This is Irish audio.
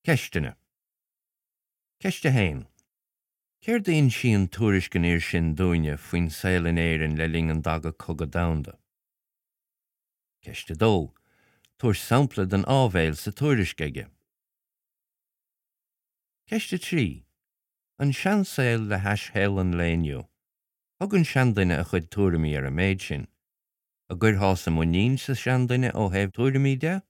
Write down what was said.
Ceisteanna. Ceist 1. Céard a insíonn tuairisc an fhir sin dúinne faoin saol in Éirinn le linn an Daga Cogadh Domhanda? Ceist 2. Tabhair sampla den áibhéil sa tuairisc aige. Ceist 3. An seansaol le hais shaol an lae inniu. Thug an seanduine a chuid tuairimí ar an méid sin. An gcuirtheása muinín sa seanduine ó thaobh tuairimí de?